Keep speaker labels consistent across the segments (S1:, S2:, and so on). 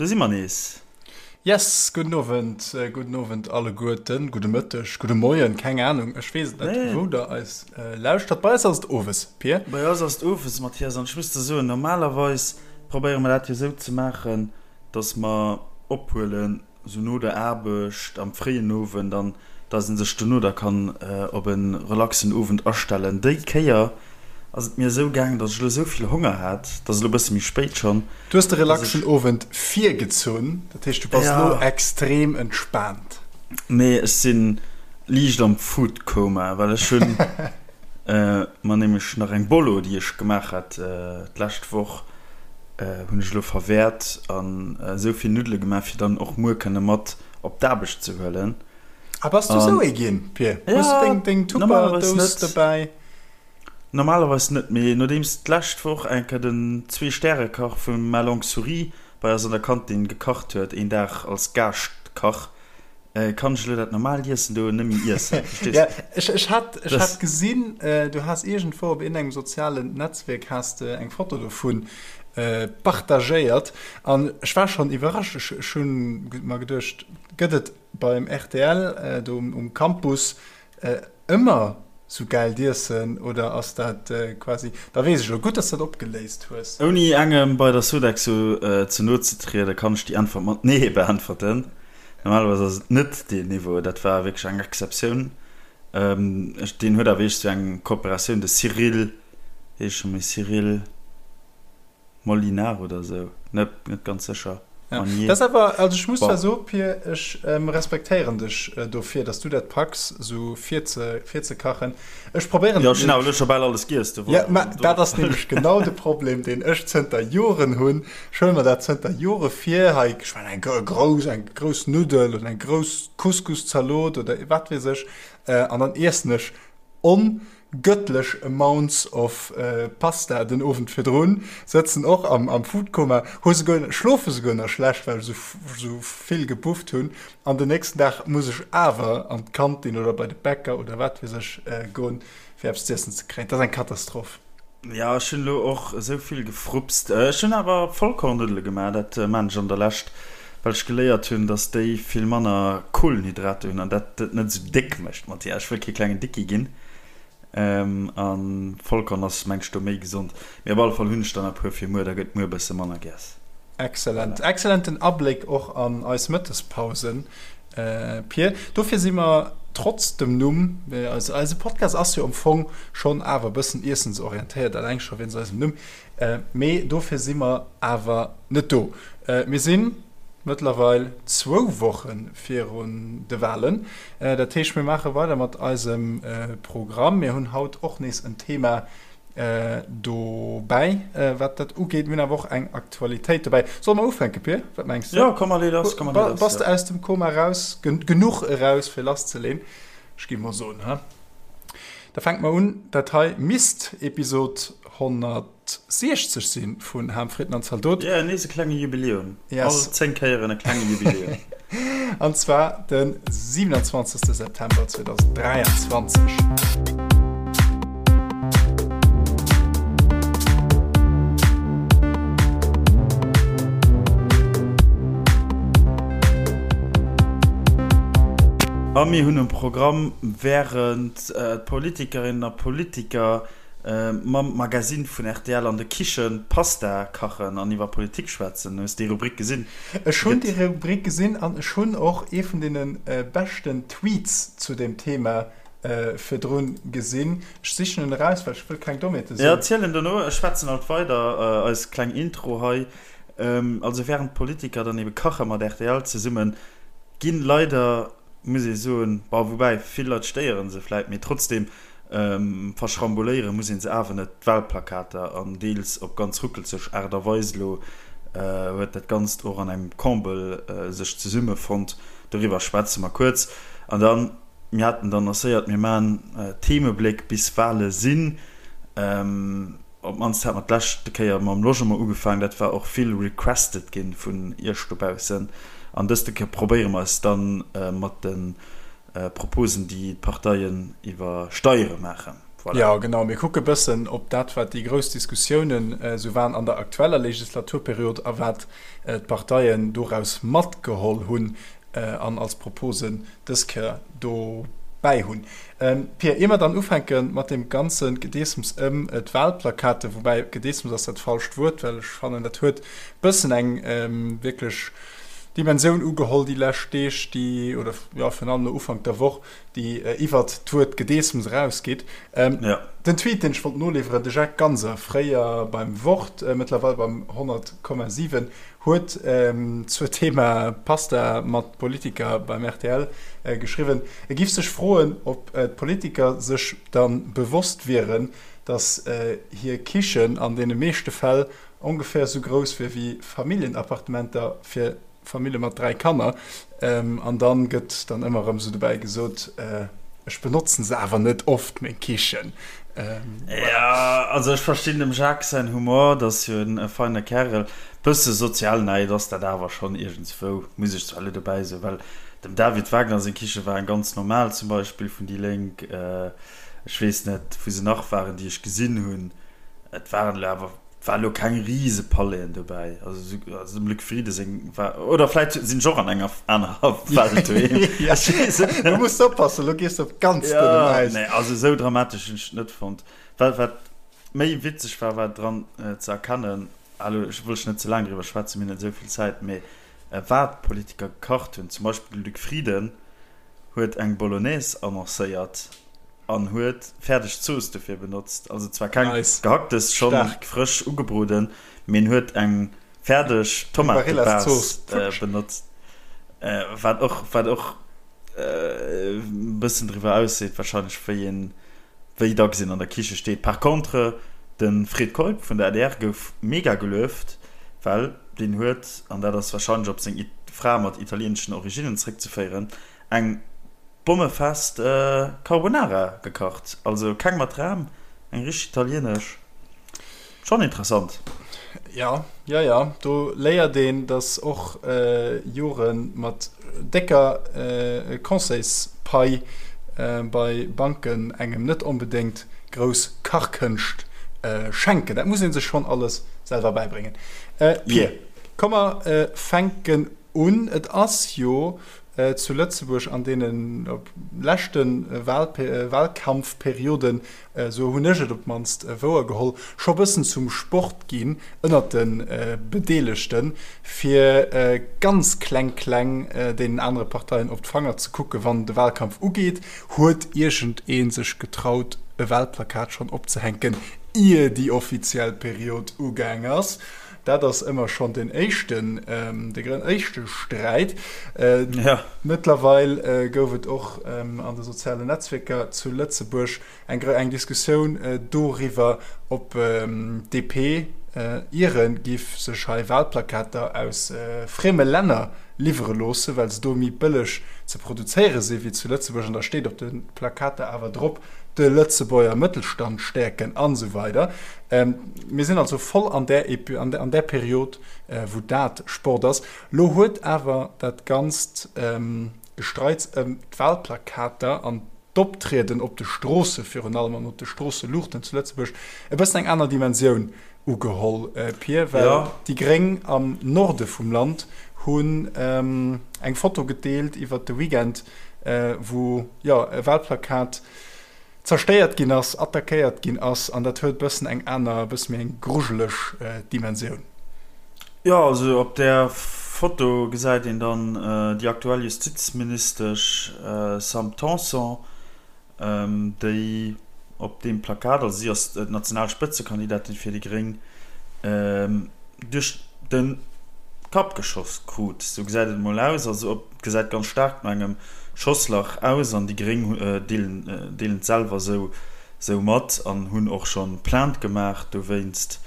S1: Do si mer nees.
S2: Yes, gudden Owend, gudden Owend alleguerten, gudde Mëtteg, gudde Moien, keng Anung, ech weess et net, wou der eis lauschtert. Bei eis ass et owes, Pir.
S1: Bei eis ass et owes, Mathias, an ech muss der soen, normalerweis probéiere mer dat jo esou ze maachen, dass mer ophuelen sou no der Aarbecht am fréien Owend an dass een sech dono da kann op e relaxen Owend astellen. Déi Kéier ass et mir esou gaangen, dass ech elo esou vill Honger hat, et ass elo e bësse méi spéit schonn,
S2: Du hues de relaxen Owend virgezunn, dat heescht du bass elo extrem entspaant.
S1: Nee, ech si liicht am Foodcoma, well ech hunn mer nämlech nach eng Bolo, déi ech gemaach hat d'lescht Woch, hunn ech elo verwäert an esou vill Nuddele gemaach, fir dann och muer kënne mat op d'Aarbecht ze huelen.
S2: Ah, bass du esou ee ginn, Pir? Hues du deng, deng Tupperdous dobäi?
S1: Normalerweis net, mee nodeems d'lescht Woch eng Kéier den Zwee-Stäre-Kach vu Ma Longue Souris bei eis an der Kantin gekacht huet, een Dag als Gaascht-Kach, Kann ech elo dat normaalt Iessen do net méi iessen?
S2: Verstees? Ja, ech, ech hat, ech hat gesinn, du has iergendwou op iergendengem sozialen Netzwierk has de eng Foto dovun partagéiert an ech war schonn iwwerrascht. Ech, ech hunn mer geduecht, gëtt et beim rtl do um Campus Ëmmer sou gäilt Iessen oder ass dat quasi, da weess ech elo, gutt dass dat opgeléist hues.
S1: Ouni engem bei der Sodexo ze no ze trieden, kann ech déi Äntwert mat Nee beäntwerten. Normalerweis ass et net deen Niveau, dat war wierklech eng Exceptioun. Ech, deen huet awer eescht sou eng Kooperatioun, de Cyril, wéi heescht scho méi, Cyril. Molinar oder sou, net net ganz sécher.
S2: Ja, dat ass awer, also ech muss zwar soen, Pir, ech respektéieren dech dofir, dass du dat packs, sou virze virzekachen. Ech probéieren
S1: Jo, ech hunn awer elo scho bal alles giess,
S2: do Ja, mä dat ass nämlech genau de Problem, deen ech zënter Joren hunn. Ech huele mer dat zënter Jore vir, hei, ech mengen, eng grouss, eng grouss Nuddel oder eng grouss Couscous-Zalot oder wat weess ech, an dann iessen ech on Göttlech amounts of Pasta den Owend virdrun, sëtzen och am Foodkoma, hu souguer, schlofe souguer nach schlecht, well ech esou vill gebufft hunn, an den nächsten Dag muss ech awer an d'Kantin oder bei de Bäcker oder wat weess ech goen, fir eppes z'iessen ze kréien. Dat ass eng Katastroph.
S1: Jo, ech hunn elo och esou vill gefrupst. Ech hunn awer Vollkornnuddele gemaach, dat maan ech an der Lescht, well ech geléiert hunn, dass déi vill manner Kohlenhydrater hunn an dat et net esou déck mécht. Mathias, ech wëll kee klengen Dicki ginn. An Vollkorn ass mengt ech do méi gesond. Mee op alle Fall hunn ech der nach e puer fir muer, da gëtt muer e bësse manner giess.
S2: Excellent. Excellenten Abléck och an eis Mëttespausen, Pir. Dofir si mer trotz dem Numm, eise Podcast ass jo am Fong schonn awer e bëssen iessensorientéiert, eleng scho wéinst eisem Numm, mee dofir si mer awer net do. Mir sinn mëttlerweil zwou Woche virun de Walen. Dat heescht, mir maache weider mat eisem Programm. Mir hunn haut och nees en Thema dobäi, wat dat ugeet. Mir hunn awer och eng Aktualitéit dobäi. Solle mer ufänken, Pir? Wat mengs
S1: de? Jo, komm, mer lee lass, komm, mer lee
S2: lass. Bass de aus dem Koma raus? Genuch eraus, fir lasszeleen? Ech gi mol soen, ha? Da fänke mer un. Dat hei misst Episod 160 si vun Ham, Fritten an Zaldot.
S1: Jo, nees e klenge Jubiläum. Yes. All 10 Kéieren e klenge Jubiläum.
S2: An zwar de 27. September 2023.
S1: A mir hunn um Programm, Wärend d'Politikerinnen a Politiker mam Magazine vun rtl an de Kichen Pasta kachen an iwwer Politik schwätzen. Hues déi Rubrik gesinn?
S2: Ech hunn déi Rubrik gesinn an ech hunn och ee vun deene beschten Tweets zu deem Thema virdrun gesinn. Ech sichen en eraus, well ech wëll keng Dommheete
S1: soen. Jo, ziel en dono. Ech schwätzen alt weider eis kleng Intro hei. Also wärend d'Politiker dann ebe kache mat rtl zesummen, ginn leider, muss ee soen, bon, woubäi vill Leit stéiere se vläit, mee trotzdem Verschrambuléiere muss een se awer net, d'Wahlplakater, an deels op ganz ruckelzeg Aart a Weis. Elo huet dat Ganzt och an engem Comble sech zesummefonnt, doriwwer schwätze mer kuerz. An dann, mir haten et annoncéiert, mir maachen Themebléck bis Wahle sinn. Op d'mannst hat mer d'leschte Kéier mam Logement ugefaangen, dat war och vill requested gi vun iech dobaussen. An dëste Kéier probéiere mer eis dann mat de Proposen, déi d'Parteien iwwer Steiere maachen.
S2: Voilà. Jo, genau. Mir kucke bëssen op dat, wat déi grouss Diskussiounen esou waren an der aktueller Legislaturperiod a wat d'Parteien doraus matgeholl hunn an als Proposen dës Kéier dobäi hunn. Pia, ier mer dann ufänke mat deem ganze Gedeessems ëm d'Wahlplakaten, woubäi Gedeessems ass dat falscht Wuert, well ech fannen, dat huet bëssen eng wierklech Dimensioun ugeholl déi lescht Deeg, déi, oder jo, virun allem no Ufank der Woch, déi iwwert d'Wuert Gedeessems erausgeet. Den Tweet, deen ech wollt noliwweren, de Jacques Ganser, fréier beim Wort, mëttlerweil beim 100,7, huet zur Thema Pasta mat Politiker beim rtl geschriwwen, e giff sech froen, ob d'Politiker sech da bewosst wieren, datt hir Kichen an deene meeschte Fäll ongeféier esou grouss wier wéi Familljenappartementer fir Famille mat 3 Kanner. An dann gëtt dann ëmmer erëm esou dobäi gesot, ech benotzen se awer net oft, meng Kichen.
S1: Jo, also ech verstinn dem Jacques säin Humor, dat ass jo en feine Kärel. Bësse Sozialneid ass dat awer schonn iergendswou, muss ech zwar elo dobäi soen, well dem David Wagner seng Kiche war eng ganz normal zum Beispill vun déi Lénk. Ech weess net, wou se nach waren, déi ech gesinn hunn. Et waren elo awer, et war elo keng rise Palaisen dobäi. Also also dem Luc Frieden seng war, oder vläit sinn ech och an enger anerer Welt doheem.
S2: Ech weess et net. Lo muss de oppassen, lo gees de op ganz dënnem
S1: Ja, Äis. nee, also esou dramatesch hunn ech et net fonnt. Wat, wat méi witzeg war, war dran ze erkennen, ah lo ech wëll ech net ze laang driwwer schwätzen, mir hunn net esou vill Zäit, mee wat d'Politiker gekacht hunn, zum Beispill de Luc Frieden huet eng Bolognese annoncéiert an huet fäerdeg Zooss dofir benotzt. Also zwar keng
S2: Nice.
S1: Gehacktes, schonn
S2: Staark.
S1: frësch ugebroden, mee en huet eng fäerdeg
S2: Eng
S1: Tomatebase
S2: Barilla-Zooss. Futsch.
S1: benotzt, wat och, wat och e bëssen driwwer ausseet wahrscheinlech, wéi een, wéi dacks een an der Kiche steet. Par contre, de Fred Keup vun der adr gouf mega gelueft, well deen huet, an dat ass wahrscheinlech op seng Fra mat italieeneschen Originnen zréckzeféieren, eng bommefest Carbonara gekacht. Also keng mat Ram, eng richteg italieenesch. Schonn interessant.
S2: Ja, ja, ja, do léiert een, dass och Jore mat décker Conseilspai bei Banken engem net onbedéngt grouss Kachkënscht schenken. Dat muss ee sech schonn alles selwer bäibréngen. Pir, komm mer fänken un. Et ass jo zu Lëtzebuerg an deene leschte Wahlkampfperioden, esou hunn ech et op d'mannst wouergeholl, scho bëssen zum Sport ginn ënnert de Bedeelegten, fir ganz kleng kleng deenen anere Parteien op d'Fanger ze kucken, wann de Wahlkampf ugeet. Huet iergend ee sech getraut, e Wahlplakat schonn opzehänken, ier déi offiziell Period ugaang ass? Dat ass ëmmer schonn den éischten, de éischte Sträit. Mëttlerweil gouf et och an de sozialen Netzwierker zu Lëtzebuerg eng eng Diskussioun doriwwer, ob d'DP iere giff sech hei Wahlplakater aus frieme Länner liwwere loosse, well se do méi bëlleg ze produzéiere si wéi zu Lëtzebuerg. An da steet op de Plakater awer drop, de Lëtzebuerger Mëttelstand stäerken an esou weider. Mir sinn also voll an där an där Period, wou dat Sport ass. Lo huet awer dat ganzt Gestreits ëm d'Wahlplakater an d'Optrieden op de Stroosse virun allem an op de Stroosseluuchten zu Lëtzebuerg e bëssen eng aner Dimensioun ugeholl, Pir, well déi Gréng am Norde vum Land hunn eng Foto gedeelt iwwert de Weekend, wou, jo, e Wahlplakat zerstéiert ginn ass, attackéiert ginn ass, an dat huet e bëssen eng aner, e bësse méi eng grujeleg Dimensioun.
S1: Jo, also op där Foto gesäit een dann déi aktuell Justizministesch Sam Tanson, déi op deem Plakat, also si ass d'national Spëtzekandidatin fir déi Gréng, duerch de Kapp geschoss krut. Sou gesäit et emol aus. Also et gesäit ganz staark no engem Schosslach aus an déi Gréng deelen et selwer sou mat an hunn och scho Plainte gemaach dowéinst.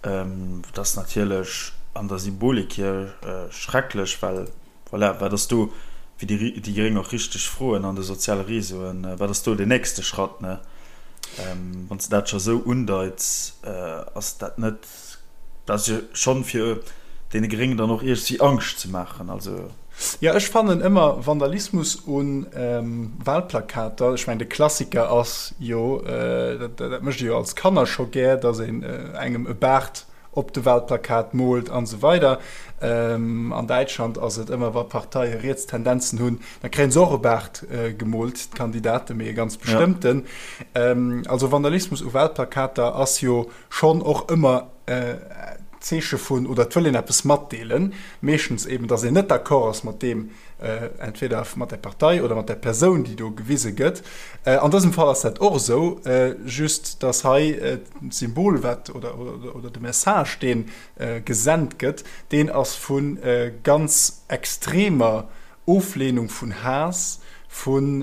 S1: Dat ass natierlech an der Symbolik hier schrecklech, well voilà, wat ass do, wéi déi Gréng och richteg froen an de soziale Réseauen, wat ass do den nächste Schratt, ne? Wann s de dat scho sou undeits, ass dat net, dat ass jo schonn fir. deene Gréngen dann och iergendwéi Angscht ze maachen. Also.
S2: Jo, ech fannen ëmmer Vandalismus u Wahlplakater, ech mengen de Klassiker ass jo, dat mécht ee jo als Kanner scho gär, datt een engem e Baart op de Wahlplakat moolt an esou weider. An Däitschland ass et ëmmer, wa Parteie riets Tendenzen hunn, da kréie se och e Baart gemoolt, d'Kandidaten, mee e ganz bestëmmten. Also Vandalismus u Wahlplakater ass jo schonn och ëmmer Zeeche vun, oder et wëll een eppes matdeelen, meeschtens eben, datt een net d'accord ass mat deem, entweder mat der Partei oder mat der Persoun, déi do gewise gëtt. An dësem Fall ass dat och esou, just datt hei d'Symbol, wat, oder, oder de Message, dee gesent gëtt, deen ass vu ganz extremer Ofleenung, vun Haass, vun,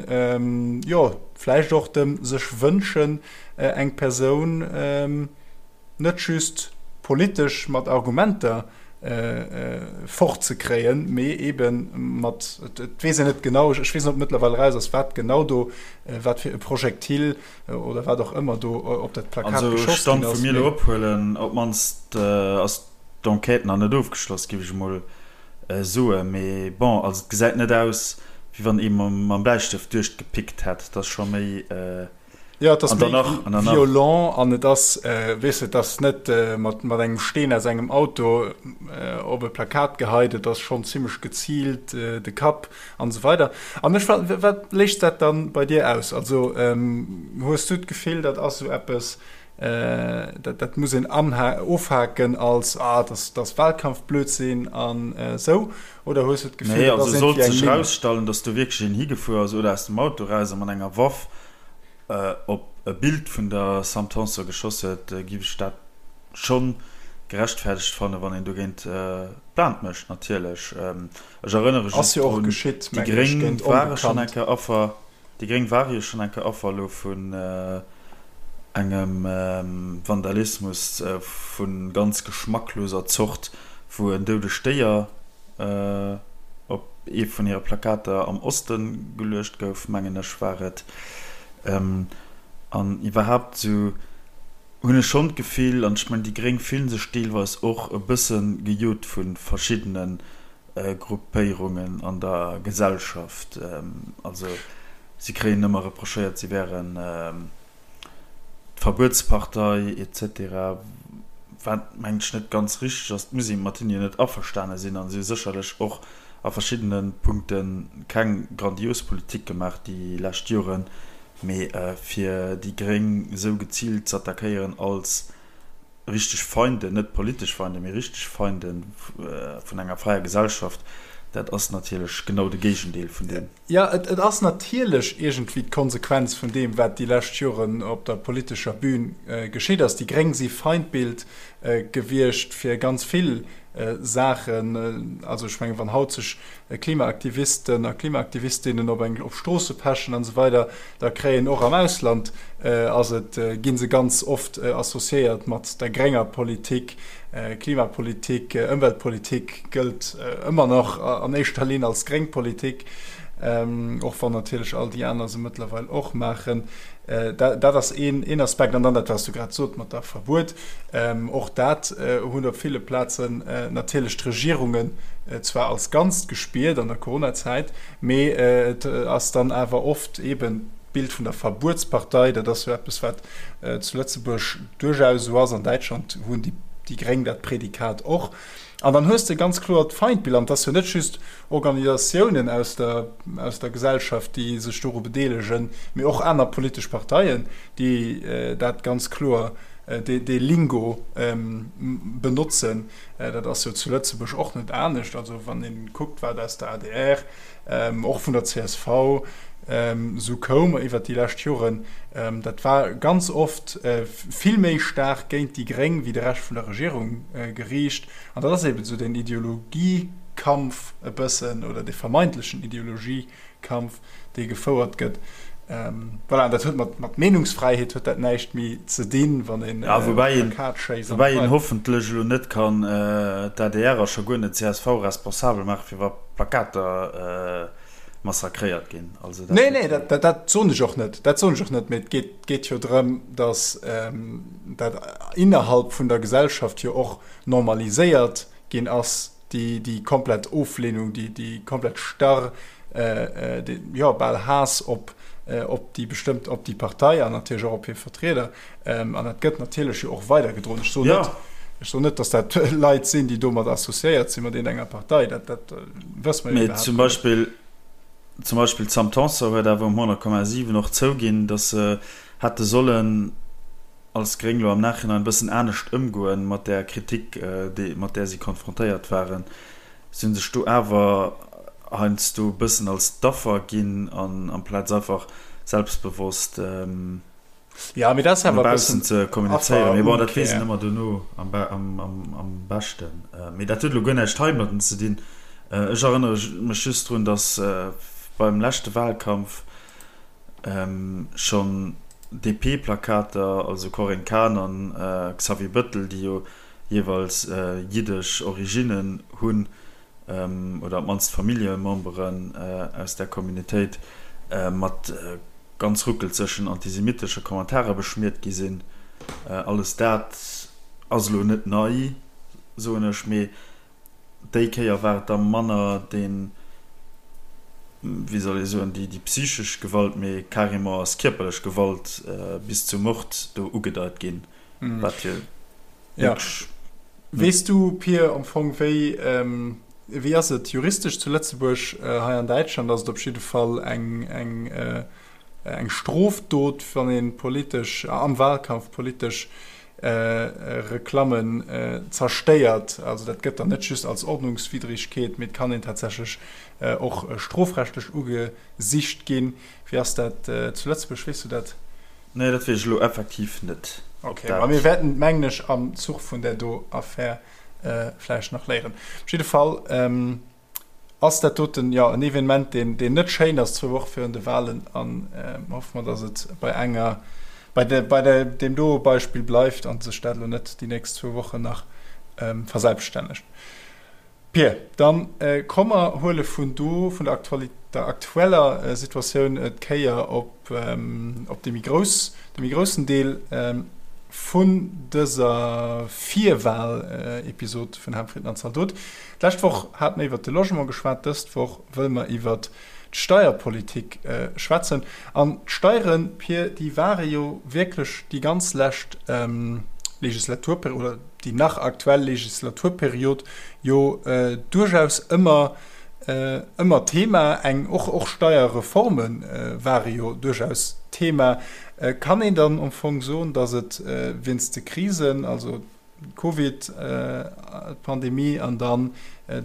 S2: jo, vläicht och dem sech wënschen, eng Persoun net just politesch mat Argumenter fortzekréien, mee ebe mat, et weess een net genau, ech weess net, ob mëttlerweil eraus ass, wat genau do, wat fir e Projektil oder wat och ëmmer do op dat Plakat
S1: geschoss ginn ass. Also Stand wou mir elo ophuelen, op d'mannst ass d'Enquête nach net ofgeschloss, géif ech emol soen. Mee bon, also et gesäit net aus, wéi wann ee mam Bläistëft duerchgepickt hätt, et ass scho méi.
S2: Jo, et ass méi violent an et ass, weess de, et ass net mat engem Steen aus engem Auto op e Plakat geheit, et ass schonn zimmlech geziilt, de Kapp an esou weider. An ech, wat léist dat dann bei dir aus? Also hues du d'Gefill, dat ass esou eppes, dat dat muss een ofhaken als, ah, dat ass Wahlkampfblödsinn an esou, oder hues du
S1: d'Gefill, dat ass iergendwéi eng Minn? Nee, also sollt sech erausstellen, datt do wierklech een higefuer ass oder aus dem Auto eraus a mat enger Waff op e Bild vun der Sam Tanson geschoss huet, giff ech dat schonn gerechtfertegt fannen, wann een dogéint Plainte mécht natierlech. Ech erënnere
S2: just drun,
S1: déi Gréng ware schonn eng Kéier Affer, déi Gréng ware jo schonn eng Kéier Affer elo vun engem Vandalismus vu ganz geschmackloser Zort, wou en doudegt Déier op ee vun hire Plakater am Oste geluecht gouf, mengen ech war et. An iwwerhaapt esou hunn ech schonn d'Gefill, an ech mengen déi Gréng fillen sech deelweis och e bësse gejot vu verschiddene Gruppéierungen an der Gesellschaft. Also si kréien ëmmer reprochéiert, si wären d'Verbuetspartei etc. Wat mengen ech net ganz richteg ass. Et muss ee mat hinne jo net averstane sinn a si hu sécherlech och a verschiddene Punkte keng grandios Politik gemaach déi lescht Joren, mee fir déi Gréng esou geziilt z'attackéieren als richteg Feinden, net politesch Feinden, mee richteg Feinde vun enger fräier Gesellschaft, dat ass natierlech genau de Géigendeel vun deem.
S2: Jo, et ass natierlech iergendwéi d'Konsequenz vun deem, wat déi lescht Joren op der politescher Bühn geschitt ass. Déi Gréng si Feindbild gewiescht fir ganz vill Saachen. Also ech mengen, wann haut sech Klimaaktivisten a Klimaaktivistinnen op eng op Stroosse pechen an esou weider, da kréien och am Ausland ass et, gi se ganz oft associéiert mat der grénger Politik. Klimapolitik, Ëmweltpolitik gëllt ëmmer nach an éischter Linn als gréng Politik, och wann natierlech all déi aner se mëttlerweil och maachen. Dat ass een Aspekt. An dann dat, wat s du grad sot mat der Verbuet, och dat hunn op ville Plazen natierlech d'Regierungen zwar als Ganzt gespiert an der Coronazäit, mee et ass dann awer oft eeben d'Bild vun der Verbuetspartei. Dat ass jo eppes, wat zu Lëtzebuerg duerchaus esou ass. An Däitschland hunn déi Gréng dat Prädikat och. An dann hues de ganz kloer d'Feindbild. An et ass jo net just Organisatiounen aus der, aus der Gesellschaft, déi sech doru bedeelegen, mee och aner politesch Parteien, déi dat ganz kloer, dee, dee Lingo benotzen. Dat ass jo zu Lëtzebuerg och net anescht. Also wann ee kuckt, wat aus der adr, och vun der csv esou koum iwwert déi lescht Joren, dat war ganz oft vill méi staark géint déi Gréng wéi de Rescht vun der Regierung geriicht. An dat ass eben esou deen Ideologiekampf e bëssen, oder dee vermeintlechen Ideologiekampf, dee gefouert gëtt. Voilà, an dat huet mat, mat Meenungsfräiheet huet dat näischt méi ze dinn, wann een
S1: Ja, woubäi een, Plakat schéisst an woubäi een hoffentlech elo net kann d'ADR a scho guer net d'CSV responsabel maache fir wa Plakater massakréiert ginn.
S2: Also dat Nee, nee, dat, dat, dat soen ech och net. Dat soen ech och net, mee et geet, geet jo drëm, datt dat innerhalb vun der Gesellschaft jo och normaliséiert. ginn ass, déi, déi komplett Oflehnung, déi, déi komplett starr, dee, jo, bal Haass op, op déi bestëmmt, op déi Partei an natierlech och op hir Vertrieder. An dat gëtt natierlech jo och weidergedroen. Ech soen net, ech soen net, datt dat Leit sinn, déi domat associéiert sinn, mat iergendenger Partei, dat, dat wësse mer jo
S1: Mee
S2: iwwerhaapt
S1: zum
S2: net.
S1: Beispill, zum Beispill d'Sam Tanson huet awer um 100,7 och zouginn, datt se hätte sollen, als Gréng lo am Nachhinein e bëssen anescht ëmgoen mat där Kritik, déi, mat där si konfrontéiert waren. Si hunn sech do awer heiansdo e bëssen als d'Affer ginn an amplaz einfach selbstbewosst
S2: Ja, mee dat ass
S1: no
S2: awer e
S1: baussen
S2: bëssen
S1: ze kommunizéieren. Mee bon, dat weess een
S2: Afferumkehr.
S1: ëmmer dono am, am, am beschten. Mee dat huet elo guer näischt heimadden ze dinn. Ech erënnere mech just drun, datt beim leschte Wahlkampf, Schonn DP-Plakater, also Corinne Cahen an Xavier Bëttel, déi jo jeeweils jiddesch Originnen hunn, oder op d'mannst Familljememberen aus där Communautéit, mat ganz ruckelzegen antisemitesche Kommentare beschmiert gi sinn. Alles dat ass elo net nei, soen ech, mee Déi Kéier war et da manner deen, wéi soll ee soen, déi psychesch Gewalt, mee carrément ass kierperlech Gewalt bis zum Mord do ugedeit ginn, wat jo
S2: wierklech. Weess du, Pir, am Fong, wéi, wéi ass et juristesch zu Lëtzebuerg? Hei an Däitschland ass et op jidde Fall eng, eng, eng Strofdot, wann ee politesch, am Wahlkampf politesch Reklammen zerstéiert. Also dat gëtt dann net just als Ordnungswidrigkeet, mee et kann een tatsächlech och strofrechtlech ugesicht ginn. Wéi ass dat zu Lëtzebuerg, weess du dat?
S1: Nee, dat weess ech elo effektiv net.
S2: Ok, ma mir wäerten et, mengen ech, am Zuch vun där do Affär vläicht nach léieren. Op jidde Fall. Ass dat doten, jo, en Evenement, deen, deen net schéin ass, zwou Woche virun de Wahlen. An hoffe mer, datt et bei enger, bei de, bei de, deem do Beispill bleift a sech dat elo net déi nächst zwou Wochen nach verselbststännegt. Pir, dann komm mer huele vun do, vun der Aktuali-, der aktueller Situatioun d'Kéier op. op dee méi grouss, de méi groussen Deel vun dëser Virwahl-Episod vun Ham Fritten an Zaldot. D'lescht Woch hate mer iwwert de Logement geschwat, dëst Woch wëlle mer iwwert d'Steierpolitik schwätzen. An d'Steieren, Pir, déi ware jo wierklech déi ganz lescht Legislaturperiod, oder déi nach aktuell Legislaturperiod jo duerchaus ëmmer Ëmmer Thema, eng och och Steierreforme ware jo duerchaus Thema. Kann een dann am Fong soen, datt et wéinst de Krisen, also d'Covid Pandemie an dann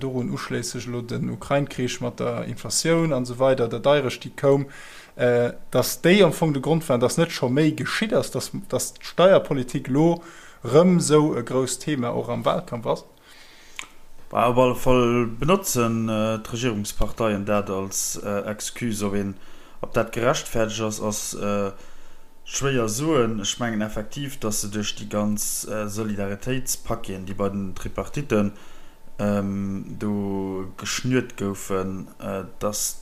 S2: dorun uschléisseg elo den Ukrain-Krich mat der Inflatioun an esou weider, der Deirecht déi koum, datt déi am Fong de Grond waren, datt net scho méi geschitt ass, datt datt d'Steierpolitik elo rëm esou e grousst Thema och am Wahlkampf ass?
S1: Op alle Fall benotzen d'Regierungsparteien dat als Excuse. Ob een, ob dat gerechtfertegt ass, ass schwéier soen. Ech mengen effektiv, datt se duerch déi ganz Solidaritéitspaqueten, déi bei den Tripartitten do geschnürt goufen, datt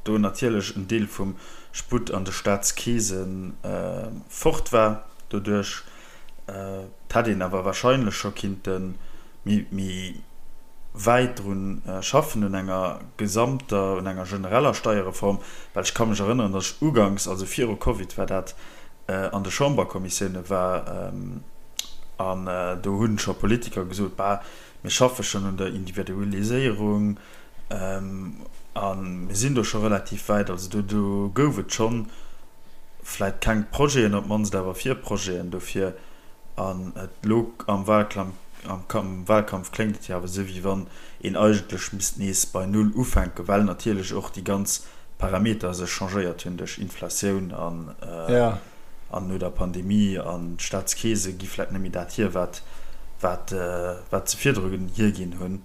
S1: do natierlech en Deel vum Sputt an de Staatskeese fort war doduerch. Et hätt een awer wahrscheinlech scho kinnte méi wäit drun schaffen, un enger gesamter, un enger genereller Steierreform, well ech ka mech erënneren, datt ech uganks, also viru Covid war dat, an de Chamberkommissioune war an do hu scho Politiker gesot, Bah, mir schaffe schonn un der Individualiséierung a mir sinn do scho relativ wäit. Also do gouf et schonn vläit keng Projeten, op d'mannst awer Virprojeten dofir. An et elo am Wahlkampf, am Wahlkampf kléngt et jo awer esou, wéi wann een eigentlech misst nees bei Null ufänken, well natierlech och déi ganz Parameter sech changéiert hunn duerch Inflatioun an an no der Pandemie an d'Staatskeese gi vläit net méi dat hier, wat wat wat se virdru hierginn hunn.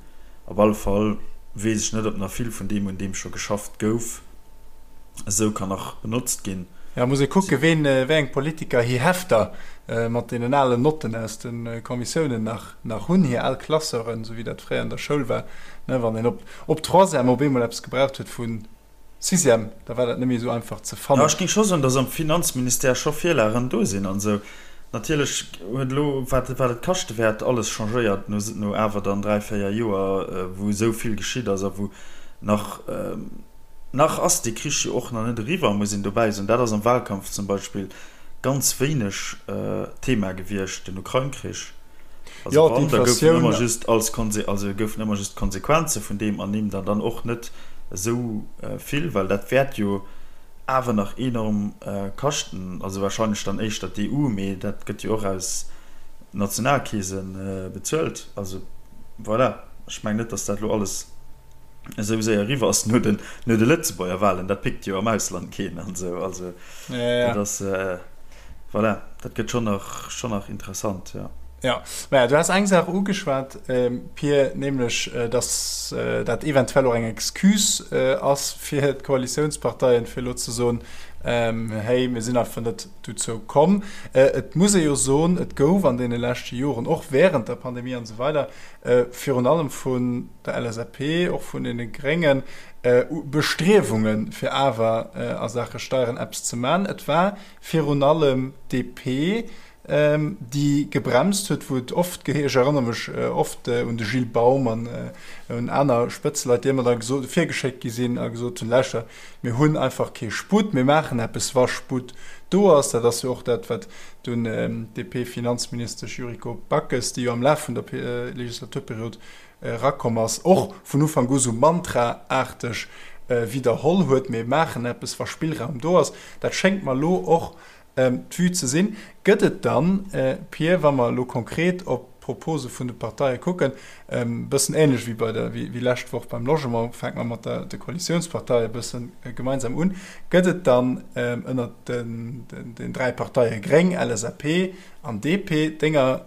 S1: Op alle Fall weess ech net, ob nach vill vun deem, un deem scho geschafft gouf, esou kann nach benotzt ginn.
S2: Jo, muss ee kucken, ween, wéi eng Politiker hir Hefter mat deenen alen Notten aus de Kommissiounen nach, nach hunn, hir al Classeuren, esou wéi dat fréier an der Schoul war, ne, wann een op, op Troisième op eemol eppes gebraucht huet vu Sixième, da war dat net méi esou einfach ze
S1: Jo,
S2: fannen.
S1: ech géing scho soen, datt am Finanzministère scho Virlagen do sinn an esou. Natierlech huet elo, wat et kaschte wäert, alles changéiert no awer dann 3, 4 Joer, wou esou vill geschitt ass a wou nach, nach ass dee Krich jo och nach net eriwwer, muss een dobäi soen. Dat ass am Wahlkampf zum Beispill ganz wéineg Thema gewiescht, den Ukrain-Krich. Also wann, da goufen ëmmer just als Konse, also goufen ëmmer just d'Konsequenze vun deem ernimmt an dann och net esou vill, well dat wäert jo, awer nach enorm kaschten, also wahrscheinlech dann éischter d'EU, mee dat gëtt jo och aus Nationalkeese bezuelt. Also voilà, ech mengen net, datt dat elo alles esou séier eriwwer ass no den, no de Lëtzebuerger Wahlen. Dat pickt jo am Ausland keen an esou. Also dat ass, voilà, dat gëtt schonn nach, schonn nach interessant, jo.
S2: Jo, maja, du has eng Saach ugeschwat, Pir, nämlech datt dat eventuell och eng Excuse ass fir d'Koalitiounsparteien, fir elo ze soen, Hey, mir sinn einfach net dozou komm. Et muss ee jo soen, et gouf an deene leschte Joren, och wärend der Pandemie an esou weider, virun allem vun der LSAP, och vun deene Gréngen, Bestriewungen, fir awer a Saache Steieren eppes ze man. Et war virun allem d'DP, déi gebremst huet, wou et oft geheescht, ech erënnere mech oft un de Gilles Baum an un aner Spëtzeleit, déi ëmmer da gesot, virgeschéckt gi sinn a gesot hunn, Lauschter, mir hunn einfach kee Sputt, mir maachen eppes, wa Sputt do ass. Dat ass jo och dat, wat dunn d'DP-Finanzministesch Yuriko Backes, déi jo am Laf vun der Legislaturperiod erakomm ass, och vun Ufank u sou mantra-aarteg widderholl huet, Mir maachen eppes, wa Spillraum do ass. Dat schéngt mer elo och D'Vue ze sinn. Gëtt et dann, Pir, wa mer elo konkret op d'Propose vun de Parteie kucken, e bëssen ähnlech wéi bei der, wéi lescht Woch beim Logement, fänke mer mat der, de Koalitiounsparteie e bësse gemeinsam un, gëtt et dann ënnert den, den 3 Parteie Gréng, LSAP an DP denger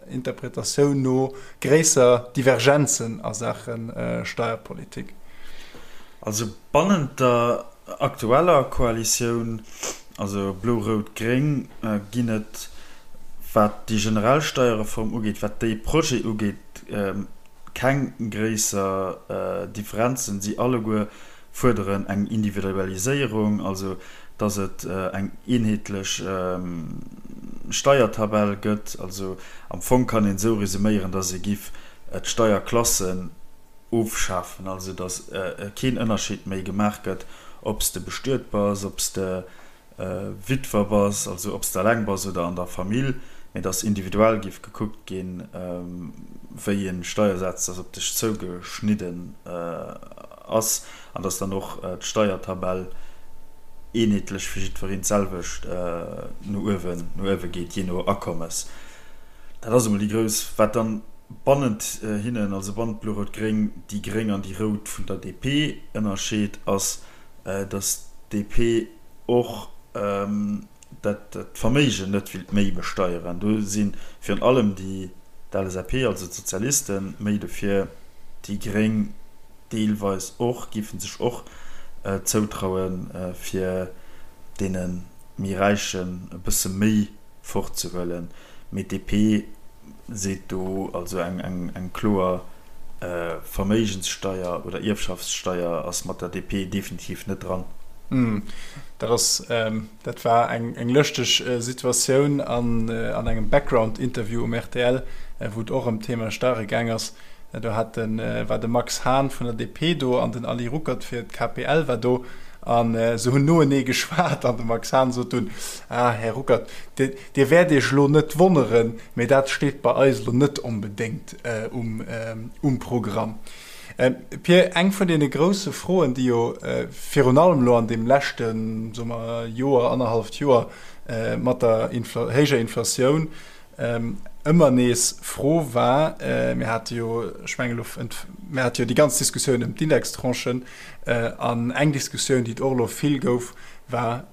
S2: Interpretatioun no gréisser Divergenzen a Saache Steierpolitik?
S1: Also bannent der aktueller Koalitioun, also Blo-Rout-Gréng, ginn et, wat déi generell Steierreform ugeet, wat dee Projet ugeet, keng gréisser Differenzen. Si alleguer fuerderen eng Individualiséierung, also datt et eng eenheetlech Steiertabell gëtt. Also am Fong kann een esou resuméieren, datt ee giff d'Steierklassen ofschafen, also datt keen Ënnerscheed méi gemaach gëtt, ob s de bestuet bass, ob s de Witwer bass, also ob s de eleng bass oder an der Famill, mee datt individuell géif gekuckt ginn, wéi e Steiersaz dass op dech zougeschnidden ass an datt dann och d'Steiertabell eenheetlech fir jiddwereen d'selwecht no uewen, no uewe geet, jee no Akommes. Dat ass emol déi grouss, wat dann bannent hinnen, also bannent Blo-Rout-Gréng, déi Gréng an déi Rout vun der DP ënnerscheet, ass, datt d'DP och dat d'Verméigen net willt méi besteieren. Do si virun allem déi d'LSAP, also d'Sozialisten, méi dofir, déi Gréng deelweis och, géife sech och zoutrauen, fir deene méi Räichen e bësse méi fortzehuelen, mee d'DP seet do also eng kloer Verméigenssteier oder Ierfschaftssteier ass mat der DP definitiv net dran.
S2: Dat ass, dat war eng lëschteg Situatioun an engem Background-Interview um rtl, wou et och ëm d'Thema Steiere gaang ass. Do hat de, war de Max Hahn vun der DP do an den Ali Ruckert fir d'KPL war do. A se hunn noenee geschwat an de Max Hahn sot dunn, Ah, Här Ruckert, Dir wäert Iech elo net wonneren, mee dat steet bei eis elo net onbedéngt um Programm. Pir, eng vun deene grousse Froen, déi jo virun allem elo an deem leschte, soe mer, Joer, annerhalleft Joer mat der héijer Inflatioun ëmmer nees Fro war, mir hate jo, ech mengen elo, mir hate jo déi ganz Diskussioun ëm d'Indextranchen, an eng Diskussioun, déi et och elo vill gouf, war,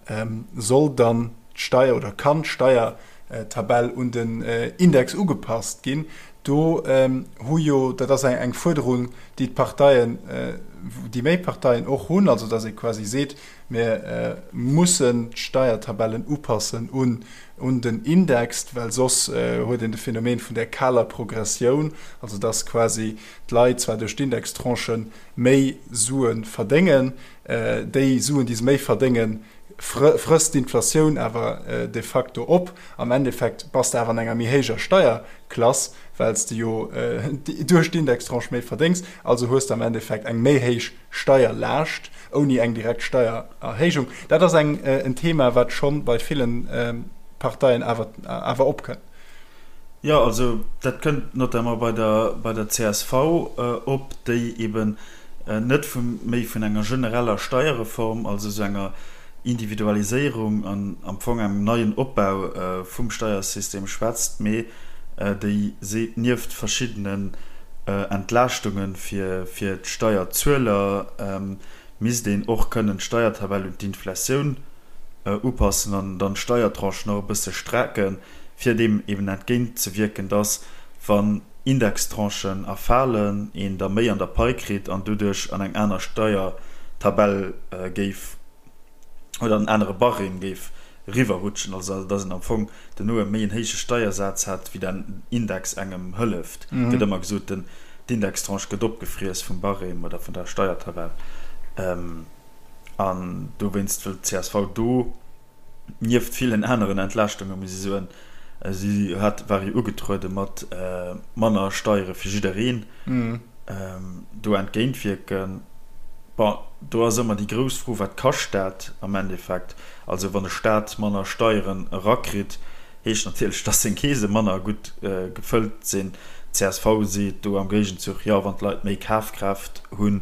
S2: Soll dann d'Steier oder kann d'Steiertabell un den Index ugepasst ginn? Do hu jo, dat ass eng Fuerderung, déi d'Parteien, déi méi Parteien och hunn, also datt ee quasi seet, mir mussen d'Steiertabellen upassen un un den Index, well soss huet een de Phänomen vun där kaler Progressioun, also datt quasi d'Leit zwar duerch d'Indextranchen méi Sue verdéngen, déi Suen, déi se méi verdéngen, Frësst d'Inflatioun awer de facto op. Am Endeffekt bass de awer an enger méi héijer Steierklass, well s de jo duerch d'Indextranche méi verdéngs. Also hues de am Endeffekt eng méi héich Steierlaascht ouni eng direkt Steiererhéijung. Dat ass eng en Thema, wat scho bei ville Parteien awer awer opkënnt.
S1: Jo, also dat kënnt notamment bei der bei der csv op, déi eben net vu méi vun enger genereller Steierreform, also esou enger Individualiséierung an am Fong engem neien Opbau vum Steiersystem schwätzt, mee déi seet, nieft verschiddenen Entlaaschtunge fir d'Steierzueler misst een och kënnen d'Steiertabell un d'Inflatioun upassen an dann d'Steiertranchen och e bësse strecken, fir deem eben entgéint ze wierken, dass, wann Indextranchen erfalen, een da méi an der Pai kritt an doduerch an eng aner Steiertabell géif oder an en anere Barème géif eriwwerrutschen, also dass een am Fong duerno e méi en héije Steiersaz hätt, wéi den Index engem hëlleft. Et gëtt ëmmer gesot, den d'Indextranche gëtt opgefriess vum Barème oder vun der Steiertabell. An dowéinst wëllt d'CSV do nieft villen aneren Entlaaschtunge muss ech soen, si hat, war jo ugetruede mat manner Steiere fir jiddereen, do entgéintwierken. Bon, do ass ëmmer déi grouss Fro, Wat kascht dat am Endeffekt? Also wann e Staat manner Steieren erakritt, heescht natierlech, dass seng Keese manner gutt gefëllt sinn. Csv seet do am Géigenzuch, jo, wann d'Leit méi Kafkraaft hunn,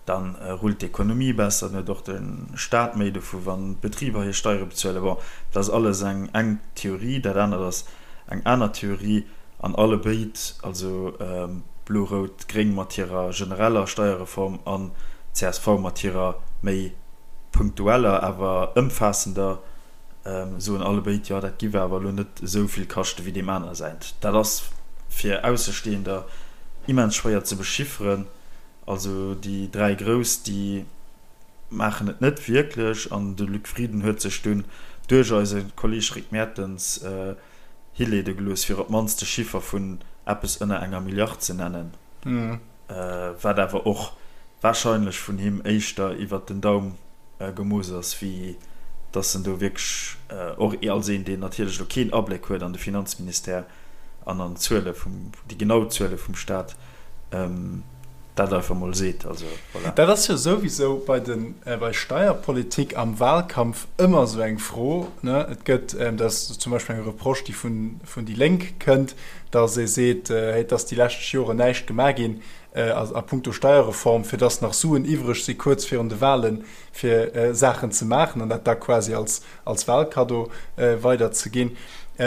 S1: da rullt d'Ekonomie besser, dann huet och de Staat méi dovu wann d'Betriber hir Steiere bezuelen. Bon, dat ass alles eng eng Theorie, dat anert ass eng aner Theorie an allebéid, also Blo-Rout-Gréng mat hirer genereller Steierreform an csv mat hirer méi punktueller, awer ëmfaassender, soen allebéid, jo dat giff awer elo net esou vill kaschte wéi deem aner säint. Dat ass fir Aussestehender immens schwéier ze bechifferen. Also déi 3 Grouss, déi maachen et net wierklech an de Luc Frieden huet sech dunn duerch eise Kolleeg Rick Mertens hileede gelooss, fir op d'mannst de Chiffer vun eppes ënner enger Milliard ze nennen, wat awer och warscheinlech vun him éischter iwwert den Daum gemooss ass, wéi dass en do wierklech, och als een, deen natierlech elo keen Abléck huet an de Finanzministère an an d'Zuele vum, déi genau Zuele vum Staat, dat einfach mol seet. Also
S2: voilà. Dat ass jo souwisou bei de, bei Steierpolitik am Wahlkampf ëmmer esou eng Fro, ne? Et gëtt, dat ass zum Beispill eng Reproche, déi vun, vun déi Lénk kënnt, dass ee seet, hey, et ass déi lescht Joren näischt gemaach ginn, a puncto Steierreform, fir dass nach Suen iwwreg si kuerz virun de Wahlen, fir Saachen ze maachen an dat da quasi als, als Wahlkaddo weiderzeginn.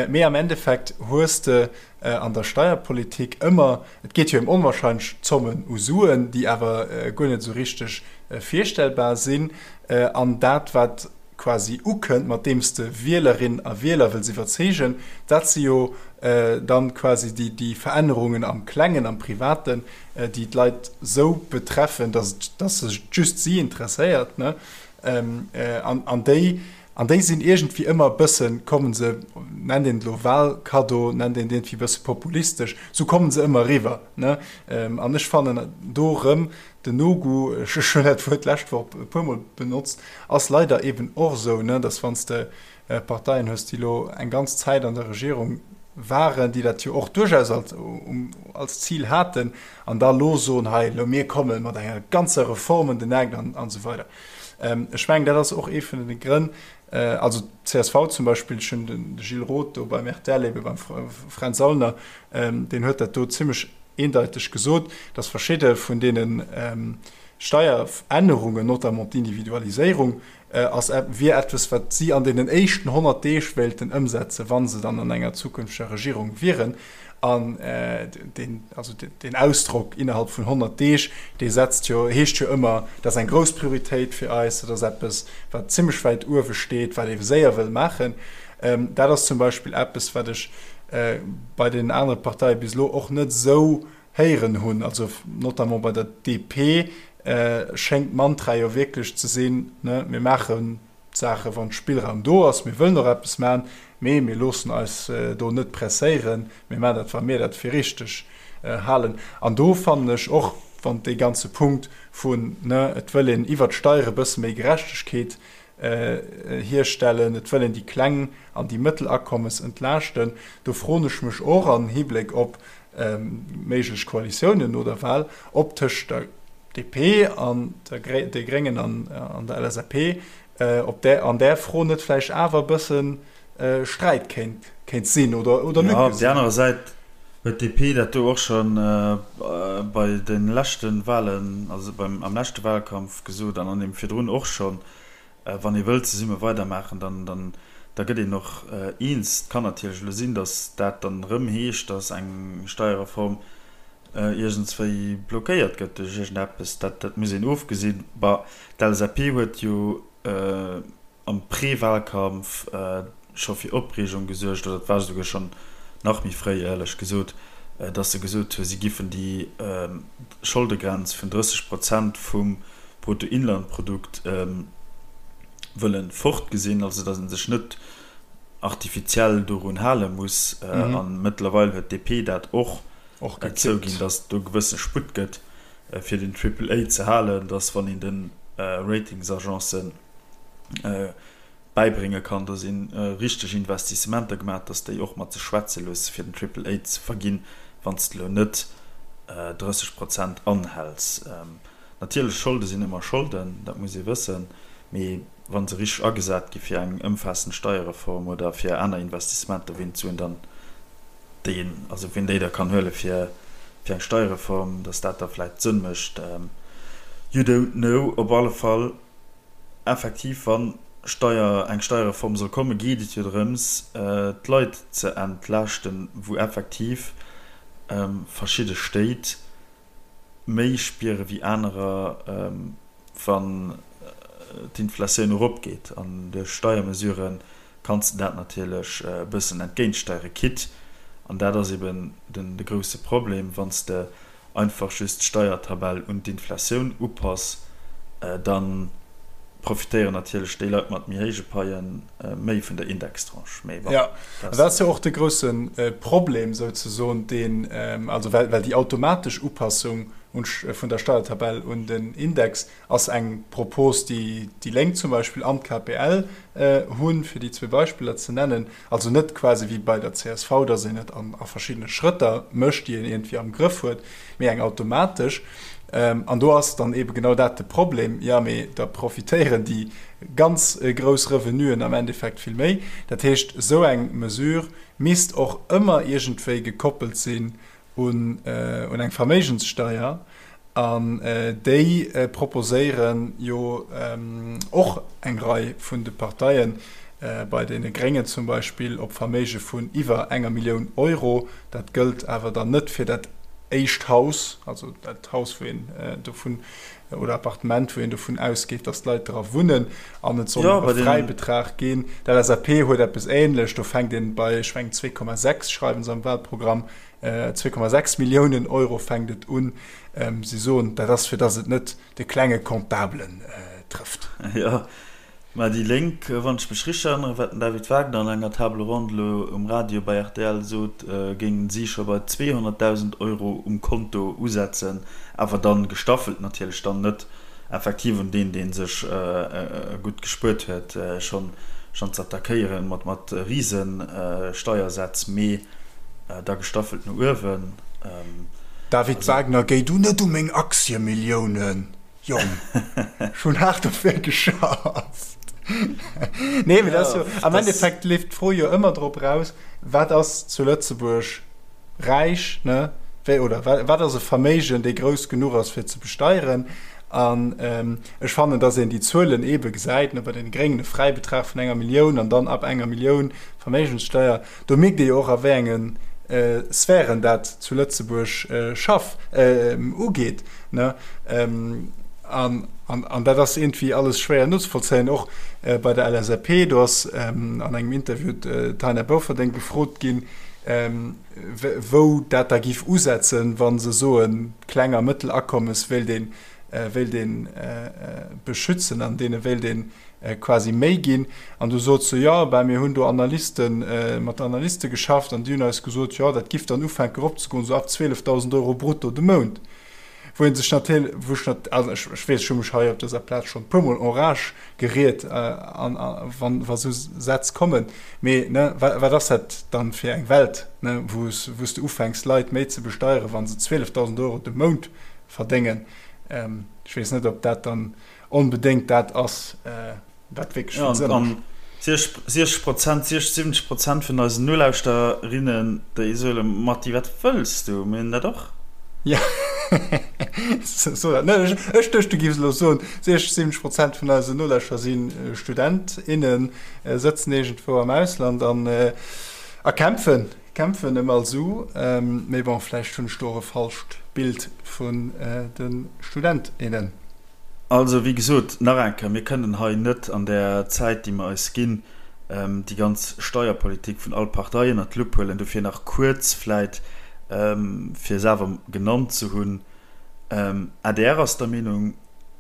S2: Mee am Endeffekt hues de an der Steierpolitik ëmmer, et geet jo ëm onwahrscheinlech Zommen u Suen, déi awer guer net esou richteg virstellbar sinn. An dat, wat quasi ukënnt, mat deem s de Wielerinnen a Wieler wëlls iwwerzeegen, dat si jo dann quasi déi, déi Verännerungen am Klengen, am Privaten, déi d'Leit esou betreffen, dass et, dass et just si interesséiert, ne? An, an déi, an déi sinn iergendwéi ëmmer e bëssen, kommen se, nennt een et elo Wahlkaddo, nennt een et iergendwéi e bësse populistesch, esou kommen se ëmmer eriwwer, ne? An ech fannen do erëm, Den No-Go, ech hunn dat Wuert d'lescht Woch e puermol benotzt, ass leider eben och esou, ne, dass wann s de Parteien hues, déi elo eng ganz Zäit an der Regierung waren, déi dat jo och duerchaus als, als Zil haten, an da elo soen, hei elo mir komme mat enger ganzer Reform ëm den Eck an esou weider. Ech mengen, dat ass och ee vun de Grënn, also d'CSV zum Beispill, ech hunn de Gilles Roth do beim rtl, ebe beim Fränz Aulner, deen huet dat do zimlech eendeiteg gesot, dass verschidde vun deene Steierännerungen, notamment d'Individualiséierung, ass, wier eppes, wat si an deenen éischten 100 Deeg wéilten ëmsetzen, wa se dann an enger zukünfteger Regierung wieren. An deen, also deen Ausdrock innerhalb vun 100 Deeg, dee setzt jo, heescht jo ëmmer, dat ass eng grouss Prioritéit fir eis, dat ass eppes, wat zimlech wäit uewe steet, wat ee séier wëll maachen. Dat ass zum Beispill eppes, wat ech bei deenen anere Parteie bis elo och net esou héieren hunn. Also notamment bei der DP schéngt d'Mantra jo wierklech ze sinn, ne, mir maachen d'Saache wann Spillraum do ass, mir wëllen och eppes maachen, mee mir loossen eis do net presséieren, mir maachen dat, wa mir dat fir richteg halen. An do fannen ech och, wann dee ganze Punkt vun, ne, et wëll een iwwert d'Steiere e bësse méi Gerechtegkeet. Hierstellen, et wëll een déi kleng an déi mëttel Akommes entlaaschten. Do froen ech mech och an Hibléck op méiglech Koalitiounen no der Wahl, ob tëscht der DP an de Gréngen an der LSAP, ob där an där Fro net vläicht awer e bësse Sträit kéint kéint sinn oder oder
S1: Lücke sinn. Op där anerer Säit huet d'DP dat do och scho bei de leschte Wahlen, also beim am leschte Wahlkampf gesot an an deem virdrun och schonn, wann ee wëllt zesumme weidermaachen, dann dann da gëtt een och eens. Et kann natierlech elo sinn, datt dat dann erëm heescht, datt eng Steierreform iergendswéi blockéiert gëtt duerch iergendeppes. Dat dat muss een ofgesinn. Bah, d'LSAP huet jo am Pré-Wahlkampf scho fir Opreegung gesuergt, oder et war esouguer schonn nach méi fréi, éierlech gesot, datt se gesot hu si giffen déi Scholdegrenz vun 30 Prozent vum Bruttoinlandprodukt wëlle fortgesinn, also datt ee sech net artifiziell dorun hale muss. A mëttlerweil huet d'DP dat och zouginn, datt et do gewësse Sputt gëtt, fir den Triple A ze halen, datt wann een de Ratingsagencen bäibrénge kann, datt ee richteg Investissementer gemaach huet, datt déi och mat sech schwätze loosse fir den Triple A ze verginn, wann s de elo net 30 Prozent anhäls. Natierlech, Scholde sinn ëmmer Scholden, dat muss ee wëssen, mee wa se richteg agesat gi fir eng ëmfaassend Steierreform oder fir aner Investissementer, ween d'Suen dann, déi een, also ween déi da kann huele fir fir eng Steierreform, datt dat da vläicht Sënn mécht, you don't know. Op alle Fall, effektiv, wa Steier, eng Steierreform soll kommen, geet et jo drëms, d'Leit ze entlaaschten, wou effektiv verschidde Stéit méi spiere wéi anerer, wann d'Inflatioun eropgeet. An duerch Steiermesurë kanns de dat natierlech e bëssen entgéintsteiere, quitte, an dat ass eben de grousse Problem, wann s de einfach just d'Steiertabell un d'Inflatioun upass, da profitéieren natierlech déi Leit mat méi héije Paie méi vun der Indextranche. Mee bon,
S2: Jo, dat ass jo och de grousse Problem souzesoen, deen, also well déi automatesch Upassung vun der Steiertabell un den Index ass eng Propos, déi déi Lénk zum Beispill an d'KPL hunn, fir déi zwee Beispiller ze nennen. Also net quasi wéi bei der csv, datt een et a verschiddene Schrëtter mécht, déi een iergendwéi am Grëff huet, mee eng automatesch. An do ass dann eebe genau dat de Problem, Jo, mee da profitéieren déi ganz grouss Revenuen am Endeffekt vill méi. Dat heescht, esou eng Mesure misst och ëmmer iergendwéi gekoppelt sinn un eng Verméigenssteier. An déi proposéiere jo och eng Rei vun de Parteien, bei deene Gréngen zum Beispill op Verméige vun iwwer enger Millioun Euro. Dat gëllt awer dann net fir dat éischt Haus, also dat Haus, wou een dovun, oder Appartement, wou een dovun ausgeet, datt d'Leit dra wunnen. An et soll nach e Fräibetrag ginn. D'LSAP huet eppes Änlech, do fänkt een bei, ech mengen, 2,6 schreiwe se am Wahlprogramm, 2,6 Milliounen Euro fänkt et un. Si soen, dat ass fir datt et net de klenge Comptabelen trëfft.
S1: Jo, mä déi Lénk, wann ech mech richteg erënneren, wat den David Wagner an enger Table ronde elo um Radio bei rtl sot, géingen si scho bei 200.000 Euro um Konto usetzen, awer dann gestaffelt natierlech, dann net effektiv un deen, dee sech gutt gespuert huet, schonn ze attackéieren mat Rise-Steiersätz, mee da gestaffelt no uewen.
S2: David Wagner, Géi du net u meng Aktiemilliounen, Jong. Ech hunn haart dofir geschafft. Nee, mee dat ass jo, am Endeffekt leeft d'Fro jo ëmmer drop eraus, Wat ass zu Lëtzebuerg räich, ne, wéi, oder wat ass e Verméigen, dee grouss genuch ass, fir ze besteieren? An ech fannen, dass een déi Zuelen eebe gesäit, ne, bei deene Gréngen e Fräibetrag vun enger Millioun an dann ab enger Millioun Verméigenssteuer. Do mierkt ee jo och, a wéi enge Sphären dat zu Lëtzebuerg schaff, ugeet, ne. An, an dat ass iergendwéi alles schwéier nozevollzéien. Och bei der LSAP, do ass an engem Interview d'Taina Bofferding gefrot ginn, wou dat da giff usetzen, wa se soen, kleng a mëttel Akommes wéilt een, wéilt ee beschützen an deene wéilt ee quasi méi ginn. An du sot se, jo, ben mir hunn do Analysten, mat Analyste geschafft an déi hunn eis gesot, jo, dat giff dann ufänken eropzegoen, esou ab 12.000 Euro brutto de Mount. Wou ee sech natierlech, wou ech nat-, also ech, ech weess, ech hu mech hei op dëser Plaz schonn e puermol en rage geriet, an, a wann, wa sou Sätz kommen. Mee, ne, wa, wat ass dat dann fir eng Welt, ne, wou s, wou s de ufänks, Leit méi ze besteieren, wa se 12.000 Euro de Mount verdéngen? Ech weess net, ob dat dann onbedéngt dat ass, wat wierklech vill Sënn mécht.
S1: An 60 Prozent, 60, 70 Prozent vun eisen Nolauschterinnen, déi soe Matti, wat wëlls du? Mir hunn dat och.
S2: Jo, so dat net. Ech duecht, du giffs elo soen, 60, 70 Prozent vun eisen Nolauschterer si Student, innen, sëtzen iergendwou am Ausland an a kämpfen, kämpfen ëm all Su. Mee bon, vläicht hunn ech do och e falscht Bild vun de Student, innen.
S1: Also, wéi gesot, nach eng Kéier, mir kënnen hei net an där Zäit, déi mer eis ginn, déi ganz Steierpolitik vun all Partei ënnert d'Lupp huelen. Dofir nach kuerz vläit, fir se awer genannt ze hunn, adr ass der Meenung,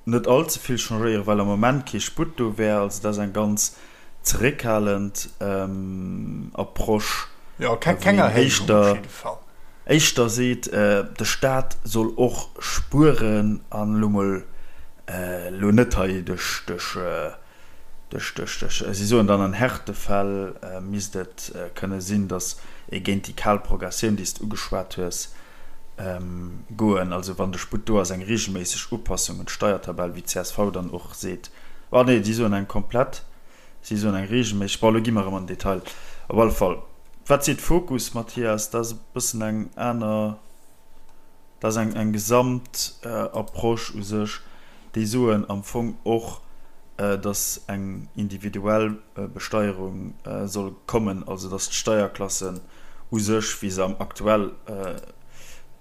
S1: net all ze vill changéieren, well am Moment kee Sputt do wär. Also dat ass eng ganz zeréckhalend Approche,
S2: Jo, keng Erhéijung op jidde Fall.
S1: Éischter seet, de Staat soll och spueren an elo mol, elo net hei duerch, duerch, duerch, duerch, duerch, si soen dann an Härtefäll misst et kënne sinn, datt ee géint déi kal Progressioun, déi s de ugeschwat hues, goen. Also wann de Sputt do ass, eng reegelméisseg Upassung un d'Steiertabell, wéi d'CSV dann och seet. Ah nee, si soen eng komplett, si soen eng reegelméisseg. Bon, elo gi mer erëm an den Detail. Op alle Fall, wat seet Fokus, Mathias? Dat ass e bëssen eng aner, dat ass eng, eng gesamt Approche u sech. Déi soen am Fong och, datt eng individuell Besteierung soll kommen, also datt d'Steierklassen u sech, wéi se am aktuell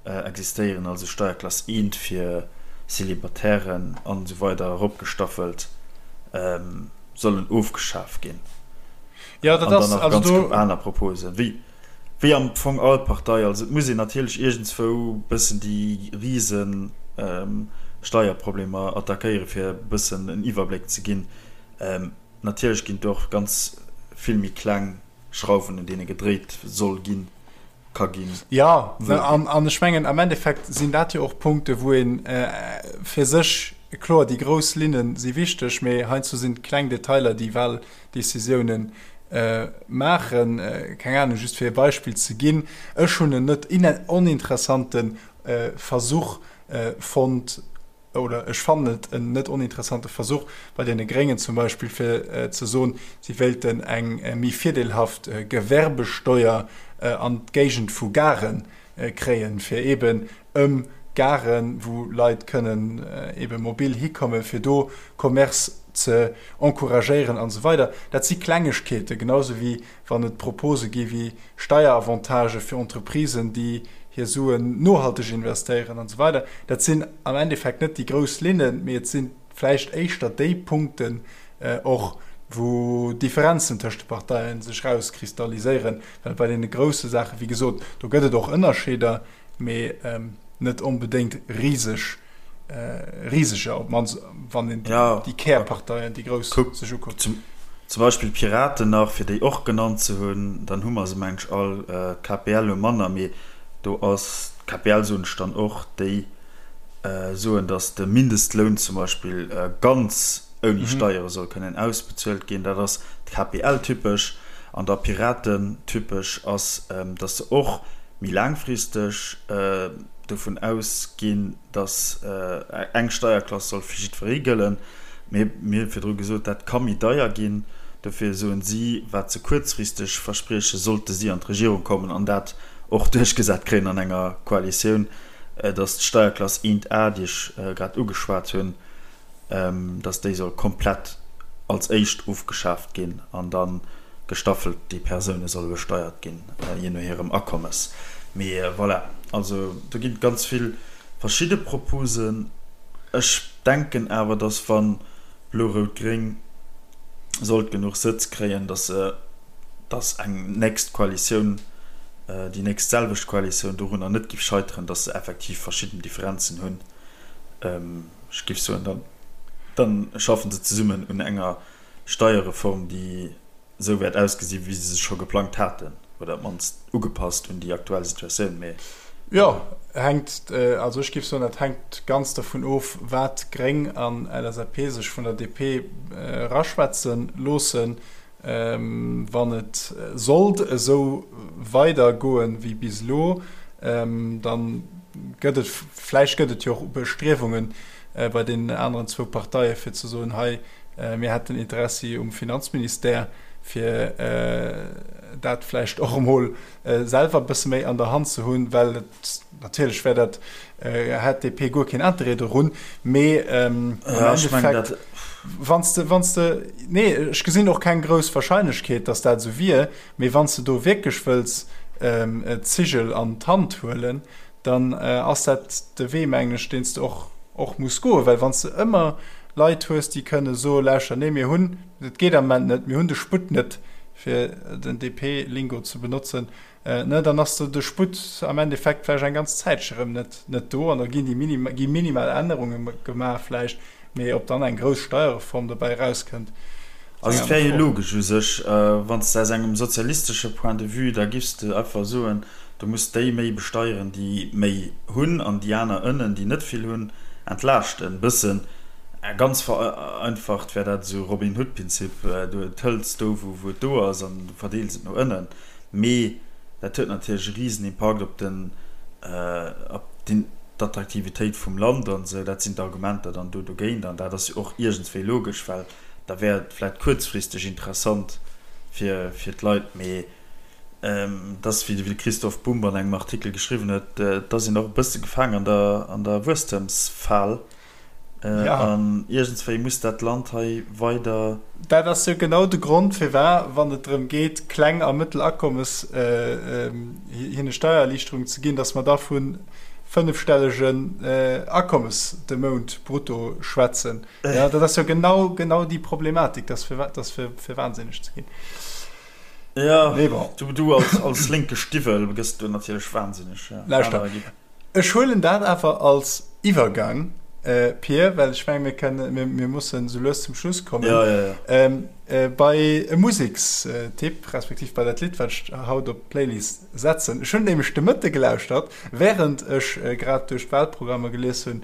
S1: existéieren, also Steierklass I fir Célibataires an esou weider eropgestaffelt, sollen ofgeschaf ginn.
S2: Jo, dat
S1: An dann
S2: ass
S1: nach
S2: also
S1: ganz
S2: do.
S1: aner Proposen, wéi, wéi am Fong all Partei. Also et muss een natierlech iergendswou bëssen déi rise Steierproblemer attackéieren, fir e bëssen en Iwwerbléck ze ginn. Natierlech ginn do och ganz vill méi kleng Schrauwen, un deene gedréit soll ginn. ka ginn.
S2: Jo, an ech mengen, am Endeffekt sinn dat jo och Punkte wou ee fir sech, kloer déi grouss Linne si wichteg, mee heiansdo sinn d'kleng Detailer déi Wahldecisiounen maachen. Keng Ahnung, just fir e Beispill ze ginn, ech hunn en net oninteressante Versuch fonnt, oder ech fannen et en net oninteressante Versuch bei deene Gréngen zum Beispill, fir ze soen, si wéilten eng méi virdeelhaft Gewerbesteuer an d'Géigend vu Gare kréien, fir eeben ëm Garen, wou Leit kënnen eebe mobil hikommen, fir do Commerce ze encouragéieren an esou weider. Dat si Klengegkeeten, genau esou wéi wann et Propose gi wéi Steieravantagë fir Entreprisen, déi hir Suen nohalteg investéieren an esou weider. Dat sinn am Endeffekt net déi grouss Linnen, mee et si vläicht éischter déi Punkten och, wou Differenzen tëscht de Parteie sech erauskristalliséieren. Well bei deene grousse Saachen, wéi gesot, do gëtt et och Ënnerscheeder, mee net onbedéngt riseg. Riseger, op d'mannst wann een déi Kärparteien, déi grouss, sech ukuckt.
S1: Zum Beispill d'Piraten nach, fir déi och genannt ze hunn, dann hu mer se mengen ech all. D'KPL hu manner, mee do ass d'KPL, soen ech dann och, déi soen, datt de Mindestloun zum Beispill ganz ouni Steiere soll kënnen ausbezuelt ginn. Dat ass d'KPL-typesch. An da Piraten-typesch ass, datt se och méi laangfristeg dovun ausginn, datt eng Steierklass soll fir jiddweree gëllen. Mee mir hu virdru gesot, dat ka méi deier ginn. Dofir soen si, wat se kuerzfristeg verspriechen, sollte si an d'Regierung kommen an dat och duerchgesat kréien an enger Koalitioun, datt d'Steierklass 1a, déi ech grad ugeschwat hunn, dass déi soll komplett als éischt ofgeschaaft ginn an da gestaffelt déi Persoune solle besteiert ginn, jee no hirem Akommes. Mee voilà, also do ginn et ganz vill verschidde Proposen. Ech denken awer, dass wa Blo-Rout-Gréng sollt genuch Sëtz kréien, dass se, dass eng nächst Koalitioun, déi nächst selwecht Koalitioun dorunner net géif scheiteren, dass se effektiv verschidden Differenzen hunn. Ech géif soen, dann, dann schaffen se zesummen un enger Steierreform, déi esou wäert ausgesinn, wéi se se scho geplangt haten, oder op d'mannst ugepasst un déi aktuell Situatioun. Mee.
S2: Jo, hänkt, also ech géif soen, dat hänkt ganz dervun of, wat Gréng an LSAP sech vun der DP eraschwätze loossen. Wann et sollt esou weider goen wéi bis elo, dann gëtt et, vläicht gëtt et jo och Bestriewungen bei deenen aneren zwou Parteie fir ze soen, hei mir hätten Interessi um Finanzministère, fir dat vläicht och emol selwer e bësse méi an der Hand ze hunn, well et natierlech wär dat, hätt d'DP guer keen Interêt dorun, mee am Endeffekt, wann s de, wann s de, nee, ech gesinn och keng grouss Wahrscheinlechkeet, datt dat esou wier, mee wann s de do wierklech wëlls d'Zigel an d'Hand huelen, dann ass dat de Wee, mengen ech, deen s de och, och muss goen, well wann s de ëmmer Leit hues, déi kënne soen, lauschter, nee, mir hunn, et geet am Moment net, mir hunn de Sputt net, fir den DP-Lingo ze benotzen, ne, dann ass de Sputt am Endeffekt vläicht eng ganz Zäitche rëm net, net do an da ginn déi minim, gi minimal Ännerunge gemaach vläicht, mee ob dann eng grouss Steierreform dobäi erauskënnt, ass
S1: Also
S2: eng
S1: et wär
S2: aner
S1: jo
S2: Fro.
S1: logesch u sech, wann s de aus engem sozialistesche Point de vue, da giffs de einfach soen, du muss déi méi besteieren, déi méi hunn an déi aner ënnen, déi net vill hunn, entlaaschten bëssen. Ganz vereinfacht wär dat esou Robin Hood-Pinzip, du hëls do wou et do ass an du verdeels et no ënnen. Mee dat huet natierlech e risen Impakt op den, op d'Attraktivitéit vum Land an esou. Dat sinn d'Argumenter dann do dogéint. An dat ass jo och iergendswéi logesch, well da wär et vläicht kuerzfristeg interessant fir, fir d'Leit. Mee et ass, wéi de Christoph Bumb an engem Artikel geschriwwen huet, et ass een och e bësse gefaang an der, an der Wuesstemsfal.
S2: Ja.
S1: An iergendswéi muss dat Land hei weider.
S2: Dat ass jo genau de Grond, firwat, wann et drëm geet, kleng a mëttel Akommes hinne Steiererliichterung ze ginn, dass mer da vu fënnefstellegen Akommes de Mount brutto schwätzen. Jo, dat ass jo genau, genau déi Problematik. Dat ass fir, fir wahnsinneg ze ginn.
S1: Jo,
S2: Mee bon.
S1: du als lénke Stiwwel gëss do natierlech wahnsinneg.
S2: Lauschter. Ech huelen dat awer als Iwwergang, Pir, well ech mengen, mir kënnen, mir, mir mussen esou lues zum Schluss kommen.
S1: Ja, ja,
S2: ja. Bei e Musekstipp, respektiv bei dat Lidd, wat ech haut op d'Playlist setzen. Ech hunn nämlech de Mëtte gelauschtert, während ech grad duerch d'Wahlprogrammer gelies hunn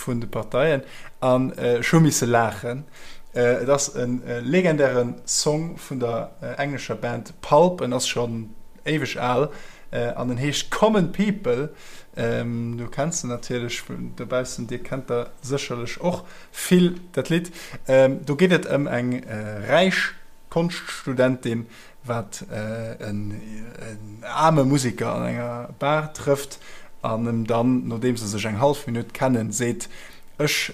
S2: vun de Parteien, an ech hu misse laachen. Et ass e legendäre Song vun der englescher Band Pulp, en ass schonn éiweg al an en heescht Common People. Du kenns en natierlech dobaussen, dir kennt der sécherlech och vill dat Lidd. Do geet et ëm eng räich Konschtstudentin, wat en aarme Museker an enger Bar trëfft an em dann, nodeem se sech eng hallef Minutt kennen, seet, Ech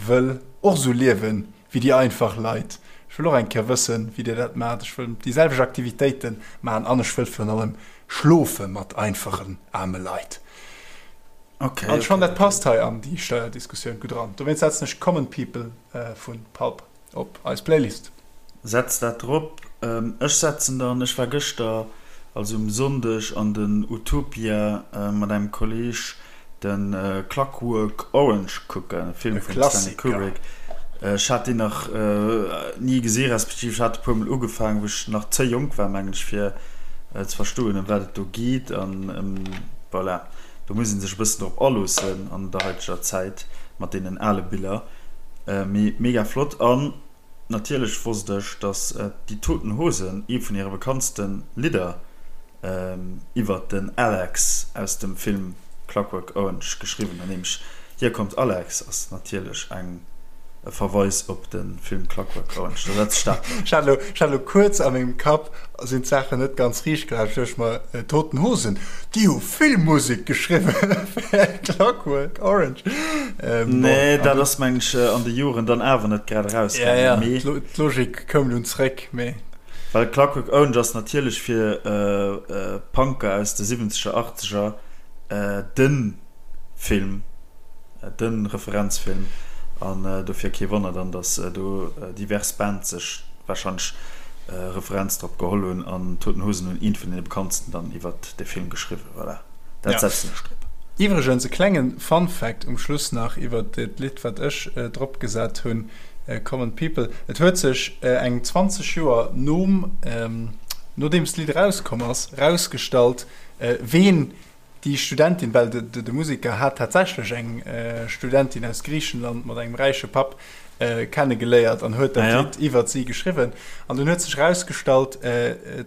S2: wëll och esou liewen wéi déi einfach Leit. Ech wëll och eng Kéier wëssen, wéi Dir dat maacht. Ech wëll déi selwecht Aktivitéite maachen an ech wëll virun allem schlofe mat einfachen, aarme Leit.
S1: Okay,
S2: An ech fannen,
S1: okay,
S2: dat
S1: okay.
S2: passt hei an déi Steuerdiskussioun gutt eran. Dowéinst setzen ech Common People vu Pulp op eis Playlist.
S1: Setz dat drop. Ech setzen dann, ech war gëschter, also um Sonndeg, an den Utopia mat engem Kolleg de Clockwork Orange kucken, e Film
S2: E
S1: vum Stanley
S2: Klassiker.
S1: Kubrick. Ech hat deen nach ni gesi respektiv ech hat e puer mol ugefaangen, wou ech nach ze jonk war, mengen ech, fir ze verstoen, ëm wat et do geet. An voilà, do muss ee sech e bëssen drop aloossen an der haiteger Zäit mat deenen ale Biller. Mee mega flott. An natierlech wosst ech, dass Die Toten Hosen ee vun hire bekanntste Lidder iwwert den Alex aus dem Film Clockwork Orange geschriwwen hunn. Nämlech Hier kommt Alex ass natierlech eng e Verweis op de Film Clockwork Orange. Da setz ech dat drop.
S2: Ech hat elo, ech hat elo kuerz a mengem Kapp sinn d'Saachen net ganz riicht gelaf. Ech duecht mer, Toten Hosen, déi hu vill Musek geschriwwen fir Clockwork Orange.
S1: Ähm, nee, dat ass meng ech an de Joren dann awer net grad erausgaangen.
S2: Ja, ja, d'Logik koum dunn zréck, mee.
S1: Well Clockwork Orange ass natierlech fir Punker aus de siwwenzeger, achtzeger de Film, de Referenzfilm an dofir kee Wonner dann, datt do divers Bands sech warscheinlech Referenz drop geholl hunn an Toten Hosen hunn eent vun deene bekanntsten dann iwwert de Film geschriwwen. Voilà, dat setzen ech drop.
S2: Iwwregens e klengen Fun Fact um Schluss nach iwwert dat Lidd wat ech drop gesat hunn, Common People. Et huet sech eng 20 Joer nom nodeems d'Lidd erauskomm ass, rausgestallt ween. Déi Studentin, well de Museker hat tatsächlech eng Studentin aus Griichenland mat engem räiche Papp kennegeléiert an huet dat Lidd iwwert si geschriwwen. An dunn huet sech erausgestallt,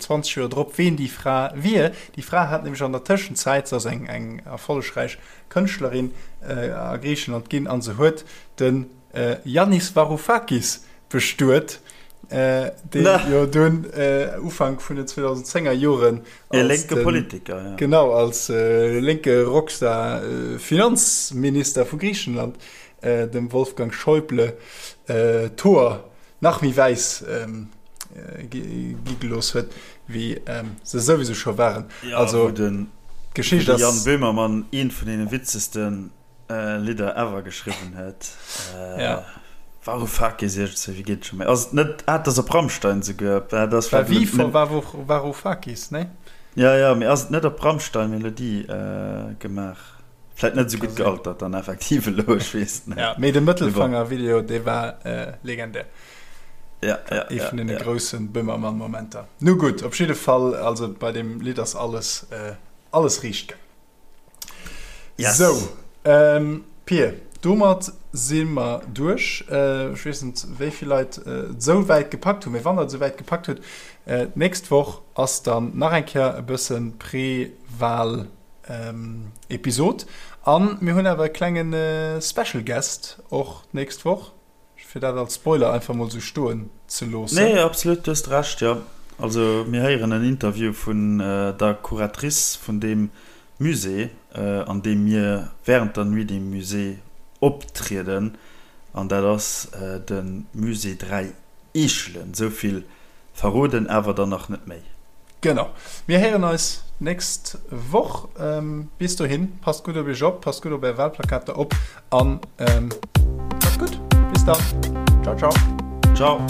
S2: 20 Joer drop, ween déi Fra wier. Déi Fra hat nämlech an der Tëschenzäit, se ass eng erfollegräich Kënschtlerin a Griichenland ginn, a se huet de Yannis Varoufakis bestuet, deen jo dunn Ufank vun den 2010er Joren
S1: E lénke Politiker,
S2: ja. Genau, als lénke Rockstar Finanzminister vu Griichenland dem Wolfgang Schäuble d'Hoer nach méi wäiss gi gelooss huet, wéi se souwisou scho waren.
S1: Ja, also, wou den, wou de Jan Böhmermann eent vun deene witzegste Lidder ever geschriwwen huet.
S2: Ja.
S1: Varoufakis iergendwéi, wéi geet et scho méi? Ass et net, ah, et ass op Rammstein souguer.
S2: Dat ass War wie vor Varoufakis, ne?
S1: Ja, ja, mee ass et net op Rammstein Melodie gemaach? Vläit net esou gutt gealtert dann effektiv elo, ech weess et
S2: net. Ja, mee de Mëttelfanger-Video, dee war legendär.
S1: Ja, ja,
S2: Ee vun deene grousse Böhmermann-Momenter. Nu gutt, op jidde Fall, also bei deem Lidd ass alles, alles riicht gaang.
S1: Yes.
S2: Sou, ähm, Pir, domat si mer duerch. Ech weess net, wéi vill Leit et esou wäit gepackt hunn, mee wann der et esou wäit gepackt hutt, d'nächst Woch ass dann nach eng Kéier e bësse Pre-Wahl. Episod. An mir hunn awer e klenge Special Guest och d'nächst Woch, fir dat als Spoiler einfach mol sou stoen ze loossen.
S1: Nee, absolut, du hues Recht, jo. Also mir héieren en Interview vun der Curatrice vun deem Musée, an deem mir während der Nuit des Musées optrieden, an dat ass de Musée 3 Eechelen. Esou vill Verroden awer dann nach net méi.
S2: Genau. Mir héieren eis d'nächst Woch. Bis dohin, passt gutt op iech op, passt gutt op är Wahlplakater op an macht's gutt. Bis dann. Ciao, ciao.
S1: Ciao.